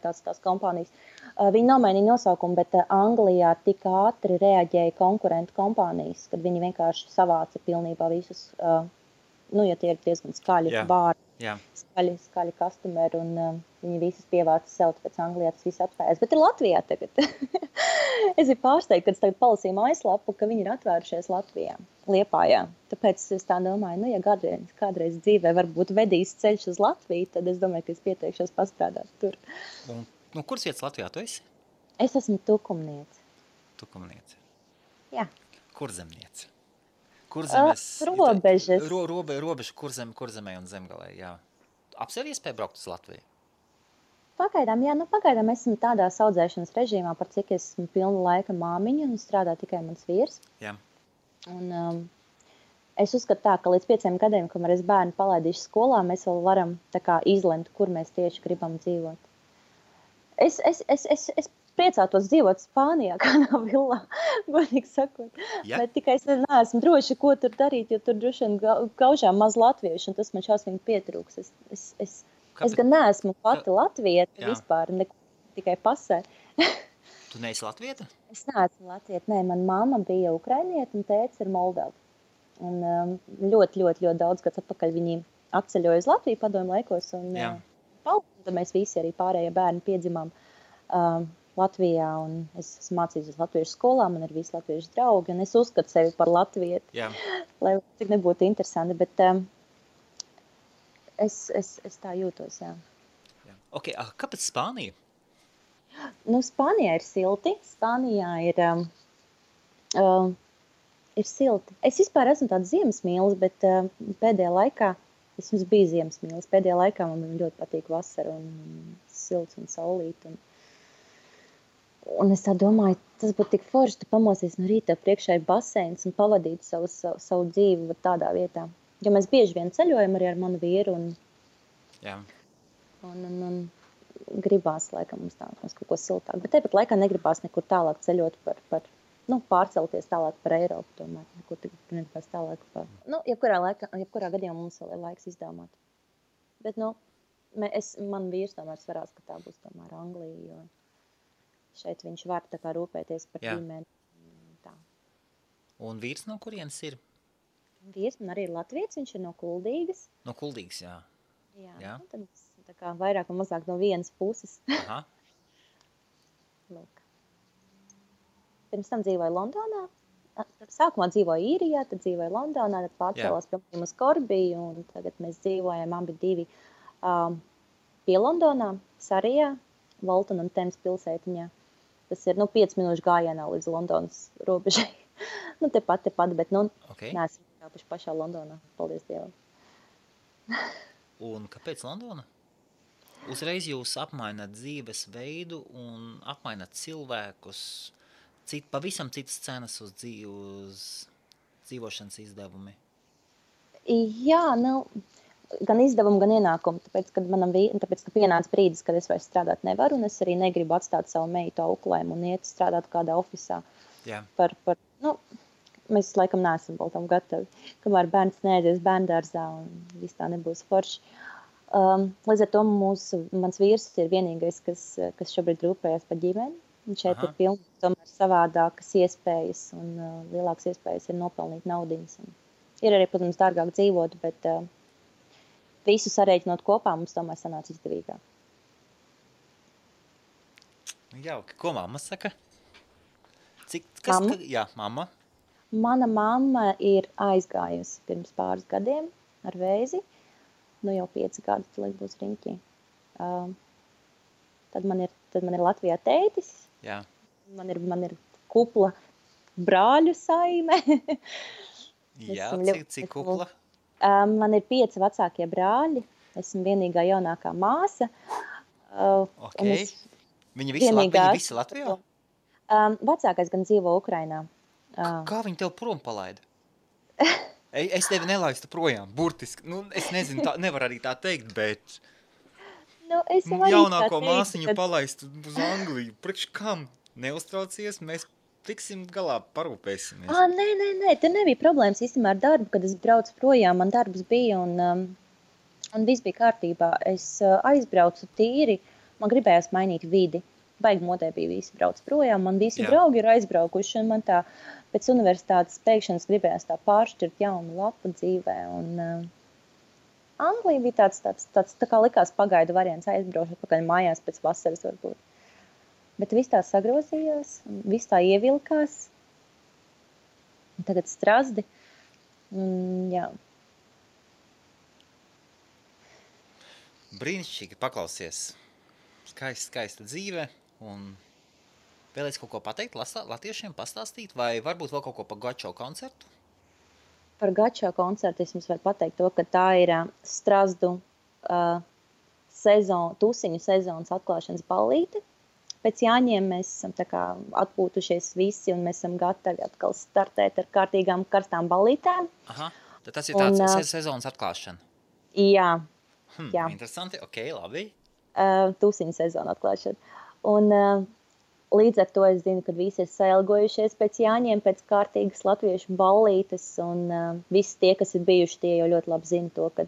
tās kompānijas. Viņi nomainīja nosaukumu, bet Anglijā tik ātri reaģēja konkurentu kompānijas, kad viņi vienkārši savāca pilnībā visus, ja tie ir diezgan skaļi bāri, skaļi customeri, un viņi visas pievāca sev, tāpēc Anglijā tas viss atspējās. Bet ir Latvijā tagad. Es biju pārsteigta, kad es tagad palasīju mājaslapu, ka viņi ir atvērušies Latvijā, Liepājā. Tāpēc es tā domāju, ja kādreiz dzīvē varbūt vedīs ceļš uz Latviju, tad es domāju, ka es pieteikšos pastrādāt tur. Un kuras vietas Latvijā tu esi? Es esmu tukumniece. Tukumniece? Jā. Kurzemniece? Kurzemes? Robežas. Robeža kurzemē un zemgalē, jā. Apsev iespēja braukt uz Latviju? Pagaidām esmu tādā audzēšanas režīmā, par cik esmu pilna laika māmiņa un strādā tikai mans vīrs. Jā. Un es uzskatu tā, ka līdz 5 gadiem, kamēr es bērnu palaidīšu skolā, mēs vēl varam tā kā izlemt, kur mēs tieši gribam dzīvot. Es priecātos dzīvot Spānijā, kādā villā, godīgi sakot. Ja? Bet tikai es neesmu droši, ko tur darīt, jo tur droši vien gaužām maz latviešu, un tas man šausmīgi pietrūks. Es gan neesmu pati latvieta vispār, tikai pasē. Tu neesi latvieta? Es neesmu latvieta, nē, man mamma bija ukrainieta un tētis ir Moldova. Un ļoti, ļoti, ļoti daudz gads atpakaļ viņi atceļoja uz Latviju padomju laikos. Un, tad mēs visi arī pārējie bērni piedzimām Latvijā. Un es esmu mācījusies latviešu skolā, man ir visi latviešu draugi. Un es uzskatu sevi par latvieti, lai cik nebūtu interesanti. Bet es tā jūtos, jā. Okay, kāpēc Spānija? Nu, Spānijā ir silti. Spānijā ir silti. Es vispār esmu tāds ziemesmīlis, bet pēdējā laikā es jums biju ziemesmīlis. Pēdējā laikā man ļoti patīk vasara un silts un saulīt. Un es tā domāju, tas būtu tik forši, tu pamosies no rīta, priekšā ir baseins un pavadīt savu dzīvi tādā vietā. Jo mēs bieži vien ceļojam arī ar manu vīru un gribās, laikam, mums kaut ko siltāk. Bet tāpat laikā negribās nekur tālāk ceļot pārcelties tālāk par Eiropu, tomēr nekur negribās tālāk par... jebkurā gadījumā mums vēl ir laiks izdomāt. Bet, man vīrs tomēr svarās, ka tā būs tomēr Anglija, jo šeit viņš var tā kā rūpēties par ģimeni. Tā. Un vīrs no kurienes ir? Vīrs man arī ir latviets, viņš ir no Kuldīgas. No Kuldīgas, jā. Jā. Tad tā kā vairāk un mazāk no vienas puses. Aha. Lūk. Pirms tam dzīvoju Londonā. Sākumā dzīvoju Īrijā, tad dzīvoju Londonā, tad pārcēlās pie maniem uz Korbiju, un tagad mēs dzīvojam abi divi pie Londonā, Sarijā, Walton un Thames pilsētiņā. Tas ir 5 minūšu gājienā līdz Londonas robežai. Tepat, bet neesam kāpuši pašā Londonā, paldies Dievam. Un kāpēc Londona? Uzreiz jūs apmaināt dzīves veidu un apmaināt cilvēkus, pavisam citas cenas uz dzīvošanas izdevumi. Jā, gan izdevumu, gan ienākumu, tāpēc, ka pienāca brīdis, kad es vairs strādāt nevaru, un es arī negribu atstāt savu meitu auklēm un iet strādāt kādā ofisā. Jā. Mēs laikam neesam vēl tam gatavi, kamēr bērns neaizies bērndārzā un viss tā nebūs forši. Līdz ar to mans vīrs ir vienīgais, kas šobrīd rūpējas par ģimeni. Un šeit ir pilns tomēr savādākas iespējas un lielākas iespējas ir nopelnīt naudiņas. Ir arī, protams, dārgāk dzīvot, bet visu sarēķinot kopā mums tomēr sanāca izdevīgāk. Jauki. Ko mamma saka? Jā, mamma. Mana mamma ir aizgājusi pirms pāris gadiem ar vēzi. Jau 5 gadus, lai būs riņķī. Tad man ir Latvijā tētis. Jā. Man ir kupla brāļu saime. Jā, cik kupla? Man ir 5 vecākie brāļi. Esmu vienīgā jaunākā māsa. Okay. Viņi visi Latvijā? Vecākais gan dzīvo Ukrainā. Kā viņi tev prom palaida? Es tevi nelaistu projām, burtiski. Es nezinu, nevar arī tā teikt, bet jaunāko māsiņu palaistu uz Angliju. Priekš kam? Neuztraucies, mēs tiksim galā, parūpēsimies. Nē, te nebija problēmas īstenībā ar darbu, kad es braucu projām, man darbs bija un viss bija kārtībā. Es aizbraucu tīri, man gribējās mainīt vidi. Baigi modē bija visi brauc projām, man visi draugi ir aizbraukuši, un man tā pēc universitātes pēkšanas gribējās tā pāršķirt jaunu lapu dzīvē, un Anglija bija tāds tā kā likās pagaidu variants, aizbraušu atpakaļ mājās pēc vasaras varbūt. Bet viss tā sagrozījās, viss tā ievilkās, un tagad Strazdi, jā. Brīnišķīgi, paklausies. Skaista dzīve. Un vēlēs kaut ko pateikt latviešiem, pastāstīt, vai varbūt vēl kaut ko par Gačo koncertu? Par Gačo koncertu es jums varu pateikt to, ka tā ir Strazdu tusiņu sezonas atklāšanas ballīte. Pēc Jāņiem mēs esam tā kā atpūtušies visi un mēs esam gatavi atkal startēt ar kārtīgām karstām ballītēm. Aha, tad tas ir tāds sezonas atklāšana. Jā. Jā. Interesanti, ok, labi. Tusiņu sezona atklāšana. Un līdz ar to es zinu, ka visi ir sailgojušies pēc Jāņiem, pēc kārtīgas latviešu ballītes, un visi tie, kas ir bijuši, tie jau ļoti labi zina to, ka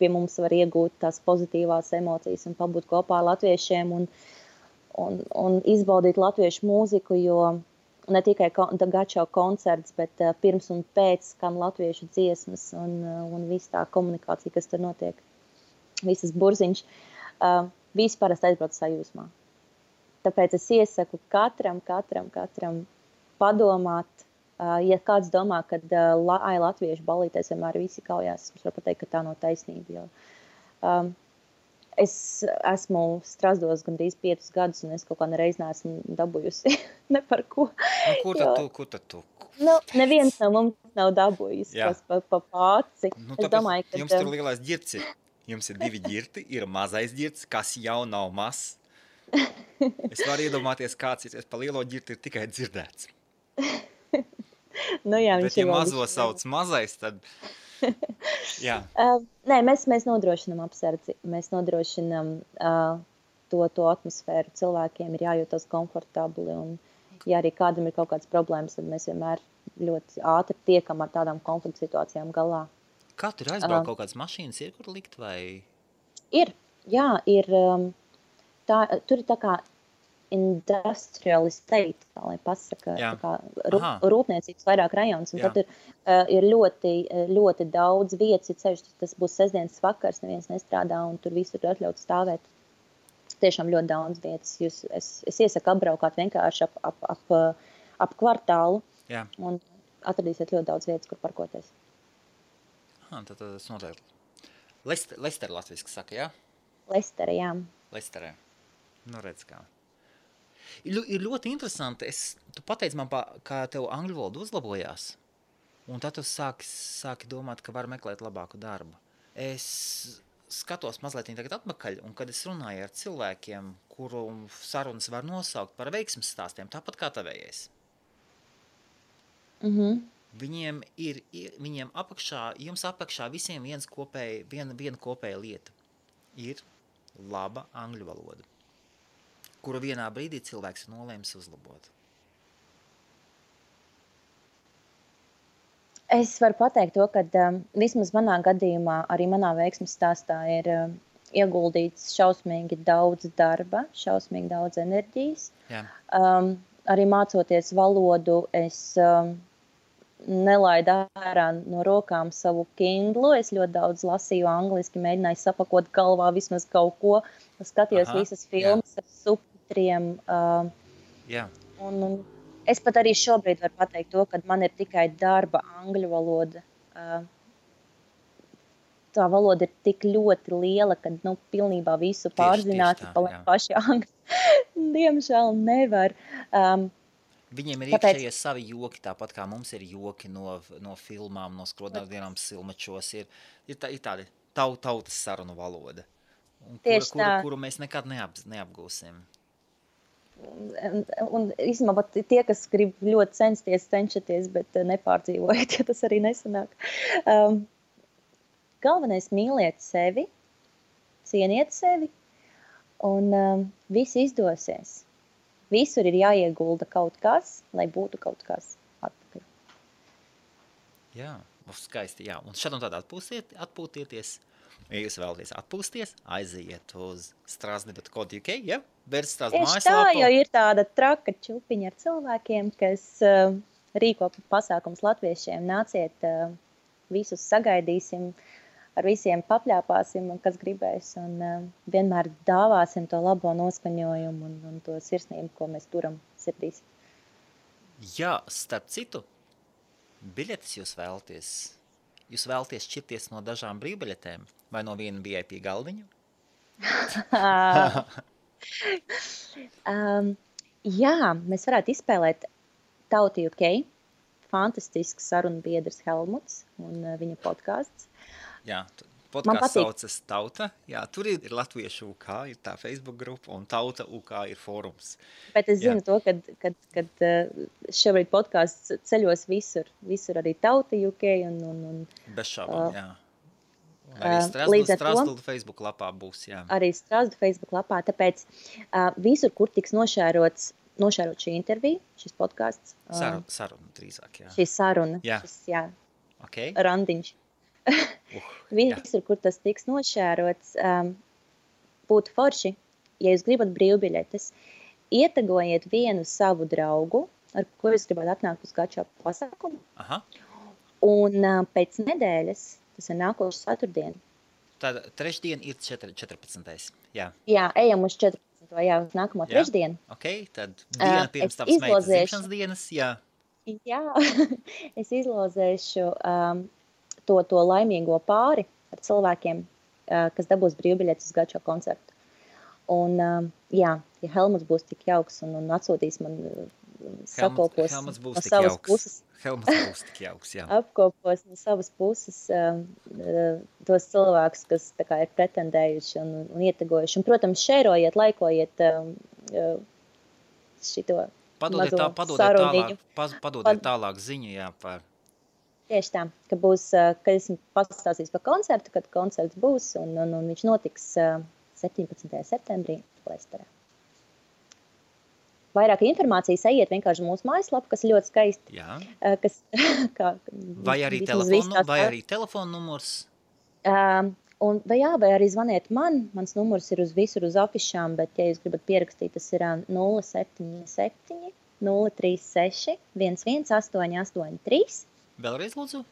pie mums var iegūt tās pozitīvās emocijas un pabūt kopā ar latviešiem un izbaudīt latviešu mūziku, jo ne tikai gačo koncerts, bet pirms un pēc skan latviešu dziesmas un viss tā komunikācija, kas tur notiek, visas burziņš, visi parasti aizbrauc sajūsmā. Tāpēc es iesaku katram padomāt, ja kāds domā, ka latviešu balītēs vienmēr visi kaujās, es varu pateikt, ka tā nav taisnība, jo es esmu Strasdos gandrīz 5 gadus, un es kaut kā nereiz neesmu dabūjusi ne par ko. Kur tad tu? Neviens no mums nav dabūjis pa pāci. Es domāju, ka jums tur lielais ģirts ir. Jums ir 2 ģirti, ir mazais ģirts, kas jau nav mazs. Es varu iedomāties, kāds ir pa lielo ģirti ir tikai dzirdēts. Jā, bet ja mazo sauc mazais, tad... Jā. Nē, mēs nodrošinām apsardzi, mēs nodrošinām to atmosfēru. Cilvēkiem ir jājūtas komfortabli, un ja arī kādam ir kaut kādas problēmas, tad mēs vienmēr ļoti ātri tiekam ar tādām konflikta situācijām galā. Kā tur aizbraukt kaut kādas mašīnas ir, kur likt vai? Ir, jā, ir. Tur ir tā kā industrial estate, tā lai pasaka, tā kā rūpniecības vairāk rajons, un tad ir ļoti, ļoti daudz vietas, ir ceļš, tas būs sestdienas vakars, neviens nestrādā, un tur visur ir atļauts stāvēt. Tiešām ļoti daudz vietas. Es iesaku apbraukāt vienkārši ap kvartālu, un atradīsiet ļoti daudz vietas, kur parkoties. Tad tas noteikti. Lester latviski saka, jā? Lestere, jā. Lesterē. Nu redz kā. Ir ļoti interesanti. Tu pateici man, kā tev angļu valoda uzlabojās, un tad tu sāki domāt, ka var meklēt labāku darbu. Es skatos mazliet tagad atpakaļ, un kad es runāju ar cilvēkiem, kuru sarunas var nosaukt par veiksmes stāstiem, tāpat kā tavējais. Viņiem jums apakšā visiem viena kopēja lieta ir laba angļu valoda, kuru vienā brīdī cilvēks ir nolēmis uzlabot. Es varu pateikt to, ka vismaz manā gadījumā, arī manā veiksmes stāstā ir ieguldīts šausmīgi daudz darba, šausmīgi daudz enerģijas. Arī mācoties valodu, es nelaidu ārā no rokām savu Kindlu. Es ļoti daudz lasīju angliski, mēģināju sapakot galvā vismaz kaut ko. Skatījos visas filmas ar subtitriem. Un es pat arī šobrīd varu pateikt to, ka man ir tikai darba angļu valoda. Tā valoda ir tik ļoti liela, ka pilnībā visu pārzināt paši angļu. Diemžēl nevar. Viņiem ir iekšējie savi joki, tāpat kā mums ir joki no filmām, no skrodnākdienām silmačos. Ir tāda tautas sarunu valoda, kuru mēs nekad neapgūsim. Un īstenībā tie, kas grib ļoti cenšaties, bet nepārdzīvojiet, ja tas arī nesanāk. Galvenais mīliet sevi, cieniet sevi, un viss izdosies. Visur ir jāiegulda kaut kas, lai būtu kaut kas atpakaļ. Jā, skaisti, jā. Un šad un tad atpūtieties. Ja jūs vēlaties atpūsties, aiziet uz strasdi.co.uk, ja? Tieši tā, jo ir tāda traka čupiņa ar cilvēkiem, kas rīko pasākums latviešiem. Nāciet, visus sagaidīsim, ar visiem papļāpāsim, un kas gribēs, un vienmēr dāvāsim to labo noskaņojumu un to sirsnību, ko mēs turam sirdīs. Jā, starp citu, biļetes jūs vēlaties šķirties no dažām brīvbiļetēm vai no viena VIP galdiņa? Jā, mēs varētu izspēlēt Tauta UK, fantastisks sarunbiedrs Helmuts un viņa podcasts. Jā, podcasts saucas Tauta. Jā, tur ir Latviešu UK, ir tā Facebook grupa, un Tauta UK ir fórums. Bet es zinu to, kad šobrīd podcasts ceļos visur arī Tauta UK un bez šaubām, jā. Arī Strasdu Facebook lapā būs, jā. Arī Strasdu Facebook lapā, tāpēc visur, kur tiks nošērot šī intervija, šis podcasts. Saruna drīzāk, jā. Šī saruna, okay. Randiņš. Visur, kur tas tiks nošērots, būtu forši, ja jūs gribat brīvbiļetes, ietagojiet vienu savu draugu, ar ko jūs gribētu atnākt uz gačo pasākumu. Aha. Un pēc nedēļas, tas ir nākošu ceturtdienu. Tad trešdien ir 14. Jā. Jā, ejam uz 14. Jā, uz nākamo trešdienu. Ok, tad diena pirms tavas meitas dzimšanas dienas, jā. Jā, es izlozēšu to laimīgo pāri ar cilvēkiem, kas dabūs brīvbiļetes uz gačo koncertu. Un, jā, ja Helmuts būs tik jauks un atsūtīs man sakopos Helmuts būs no tik savas jauks. puses, Helmuts būs tik jauks, jā. apkopos no savas puses tos cilvēkus, kas tā kā ir pretendējuši un ietegojuši. Un, protams, šērojiet, laikojiet šito mazo saruniņu. Padodiet tālāk ziņu, jā, par... Tieši tā, ka būs, kad esmu pastāstījis par koncertu, kad koncerts būs, un viņš notiks 17. septembrī Lesterā. Vairāk informācijas ejiet vienkārši mūsu mājaslapu, kas ir ļoti skaisti. Jā. Vai arī telefonu numurs? Vai arī zvaniet man. Mans numurs ir visur uz afišām, bet, ja jūs gribat pierakstīt, tas ir 077 036 11883. Vēlreiz lūdzu?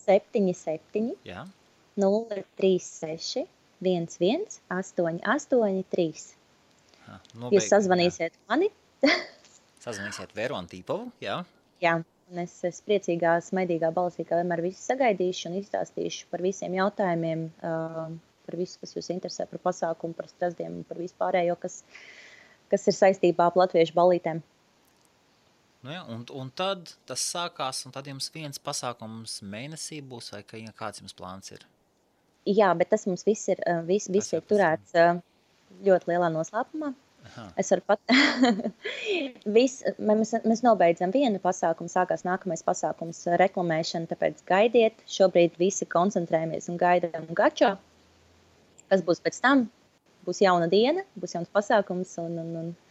77 Jā. 036 11883. Jūs sazvanīsiet mani. Sazvanīsiet Veru Antīpovu, jā. Jā, un es priecīgā, smaidīgā balsī, kā vienmēr visu sagaidīšu un izstāstīšu par visiem jautājumiem, par visu, kas jūs interesē, par pasākumu, par strasdiem un par vispārējo, kas ir saistībā ar latviešu ballītēm. Nu jā, un tad tas sākās, un tad jums viens pasākums mēnesī būs, vai kāds jums plāns ir? Jā, bet tas mums viss ir turēts ļoti lielā noslēpumā. Aha. Es varu mēs nobeidzam vienu pasākumu, sākās nākamais pasākums reklamēšana, tāpēc gaidiet. Šobrīd visi koncentrējamies un gaidām gačo. Kas būs pēc tam? Būs jauna diena, būs jauns pasākums.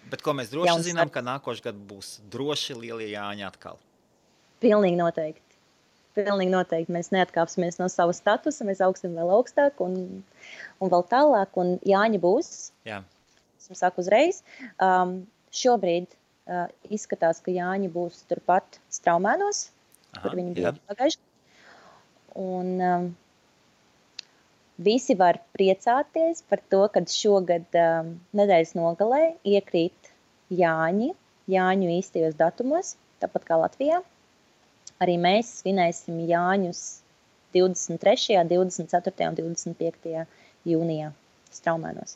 Bet ko mēs droši zinām, ka nākošais gads būs droši lielie Jāņi atkal? Pilnīgi noteikti. Mēs neatkāpsimies no sava statusa, mēs augsim vēl augstāk un vēl tālāk, un Jāņi būs. Jā. Es saku uzreiz. Šobrīd izskatās, ka Jāņi būs turpat Straumēnos, kur viņi bija pagājuši. Un visi var priecāties par to, kad šogad nedēļas nogalē iekrīt Jāņu īstajos datumos, tāpat kā Latvijā. Arī mēs svinēsim Jāņus 23., 24. un 25. jūnijā Straumēnos.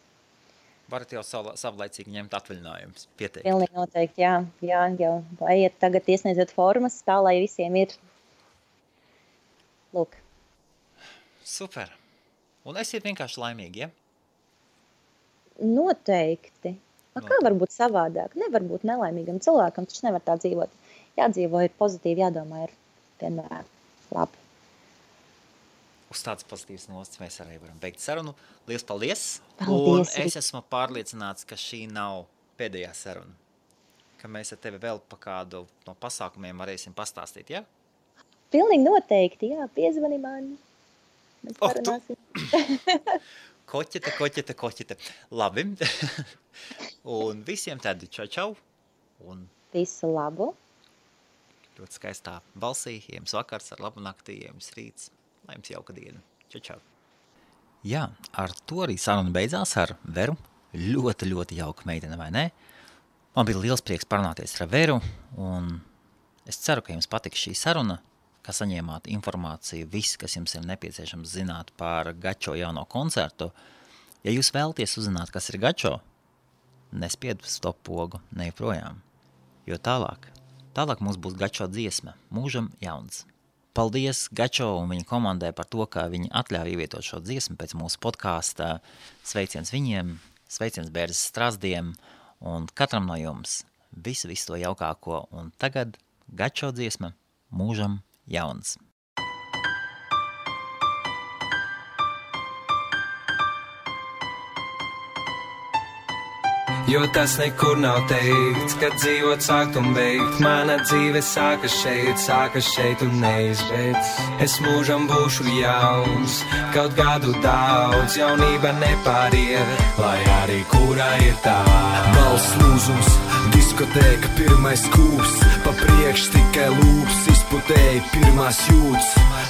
Varat jau savlaicīgi ņemt atvaļinājumus, pieteikt. Pilnīgi noteikti, jā. Jau ejiet tagad iesniedziet formas, tā lai visiem ir. Lūk. Super. Un esiet vienkārši laimīgi, ja? Noteikti. Kā var būt savādāk? Nevar būt nelaimīgam cilvēkam, taču nevar tā dzīvot. Jādzīvo, ir pozitīvi, jādomā, ir vienmēr labi. Uz tāds pozitīvs nosts mēs arī varam beigt sarunu. Liels paldies! Paldies! Un es esmu pārliecināts, ka šī nav pēdējā saruna. Ka mēs ar tevi vēl pa kādu no pasākumiem varēsim pastāstīt, ja? Pilnīgi noteikti, jā. Piezvani man. Mēs parunāsim. Koķete. Labi. Un visiem tādi čau. Un visu labu. Ļoti skaistā balsī, jums vakars ar labu naktī, jums rīts, lai jums jauka diena. Čau. Jā, ar to arī saruna beidzās ar Veru. Ļoti, ļoti jauka meitene, vai ne? Man bija liels prieks parunāties ar Veru, un es ceru, ka jums patiks šī saruna, ka saņēmāt informāciju, viss, kas jums ir nepieciešams zināt par Gačo jauno koncertu. Ja jūs vēlaties uzzināt, kas ir Gačo, nespied stop pogu, nejoprojām, jo tālāk mums būs Gačo dziesma, Mūžam jauns. Paldies Gačo un viņa komandai par to, ka viņi atļauj ievietot šo dziesmu pēc mūsu podkāsta. Sveiciens viņiem, sveiciens Bērzes Strazdiem un katram no jums visu to jaukāko. Un tagad Gačo dziesma, Mūžam jauns. jo tas nekur nav teikts, kad dzīvot sākt un beigt. Mana dzīve sākas šeit un neizbeidz. Es mūžam būšu jauns, kaut gadu daudz, jaunība nepāriet, lai arī kurā ir tā. Balss lūzums, diskotēka, pirmais kūps, pa priekš tikai lūps, izputēji pirmās jūtas,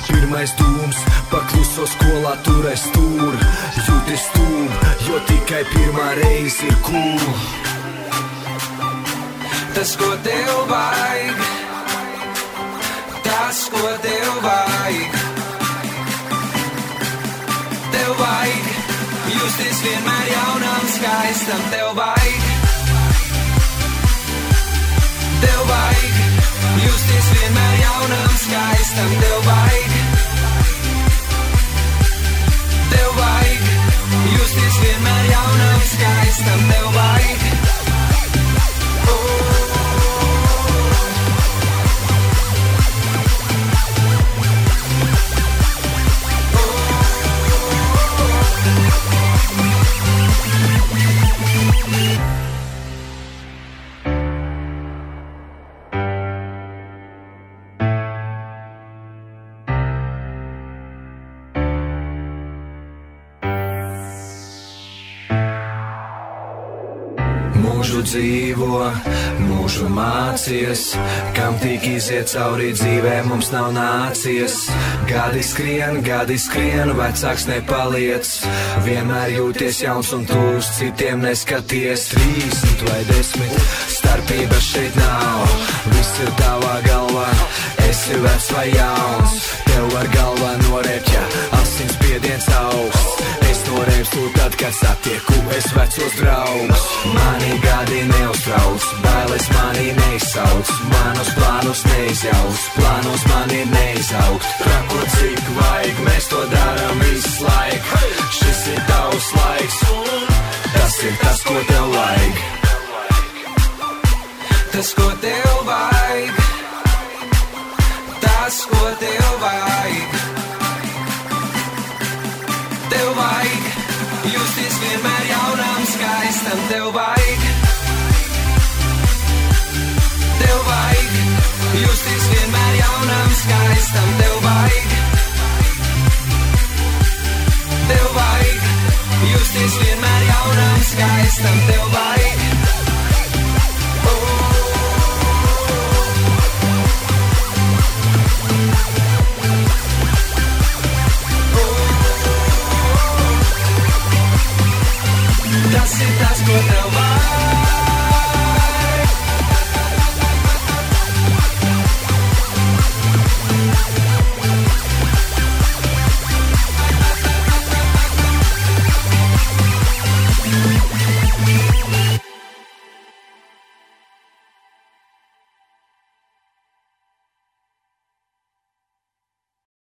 pirmais dūms, pakluso skolā turēs stūr, jūties stūm, jo tikai pirmā reize ir cool. Tas, ko tev vajag, tas, ko tev vajag, tev vajag justies vienmēr jaunam, skaistam, tev vajag, tev vajag justies vienmēr jaunam, skaistam, tev vajag, tev vajag justies vienmēr jaunam, skaistam, tev vajag. Mūžu dzīvo, mūžu mācies, kam tik iziet cauri dzīvē mums nav nācies. Gadi skrien, vecāks nepaliec, vienmēr jūties jauns un tūs, citiem neskaties. 30 vai 10, starpība šeit nav, viss ir tavā galvā, esi vecs vai jauns. Tev var galvā norēpt, ja asins spiediens augsts. Es norēpstu tad, kad satieku es vecos draugus. Mani gadi neuztrauc, bailes mani neizsauc, manus plānus neizjauc, plānos mani neizaugt. Trakot cik vajag, mēs to darām visu laiku. Šis ir tavs laiks, tas ir tas, ko tev vajag. Tas, ko tev vajag, tas, ko tev vajag, tev vajag justies vienmēr jaunam, skaistam, tev vajag, tev vajag justies vienmēr jaunam, skaistam, tev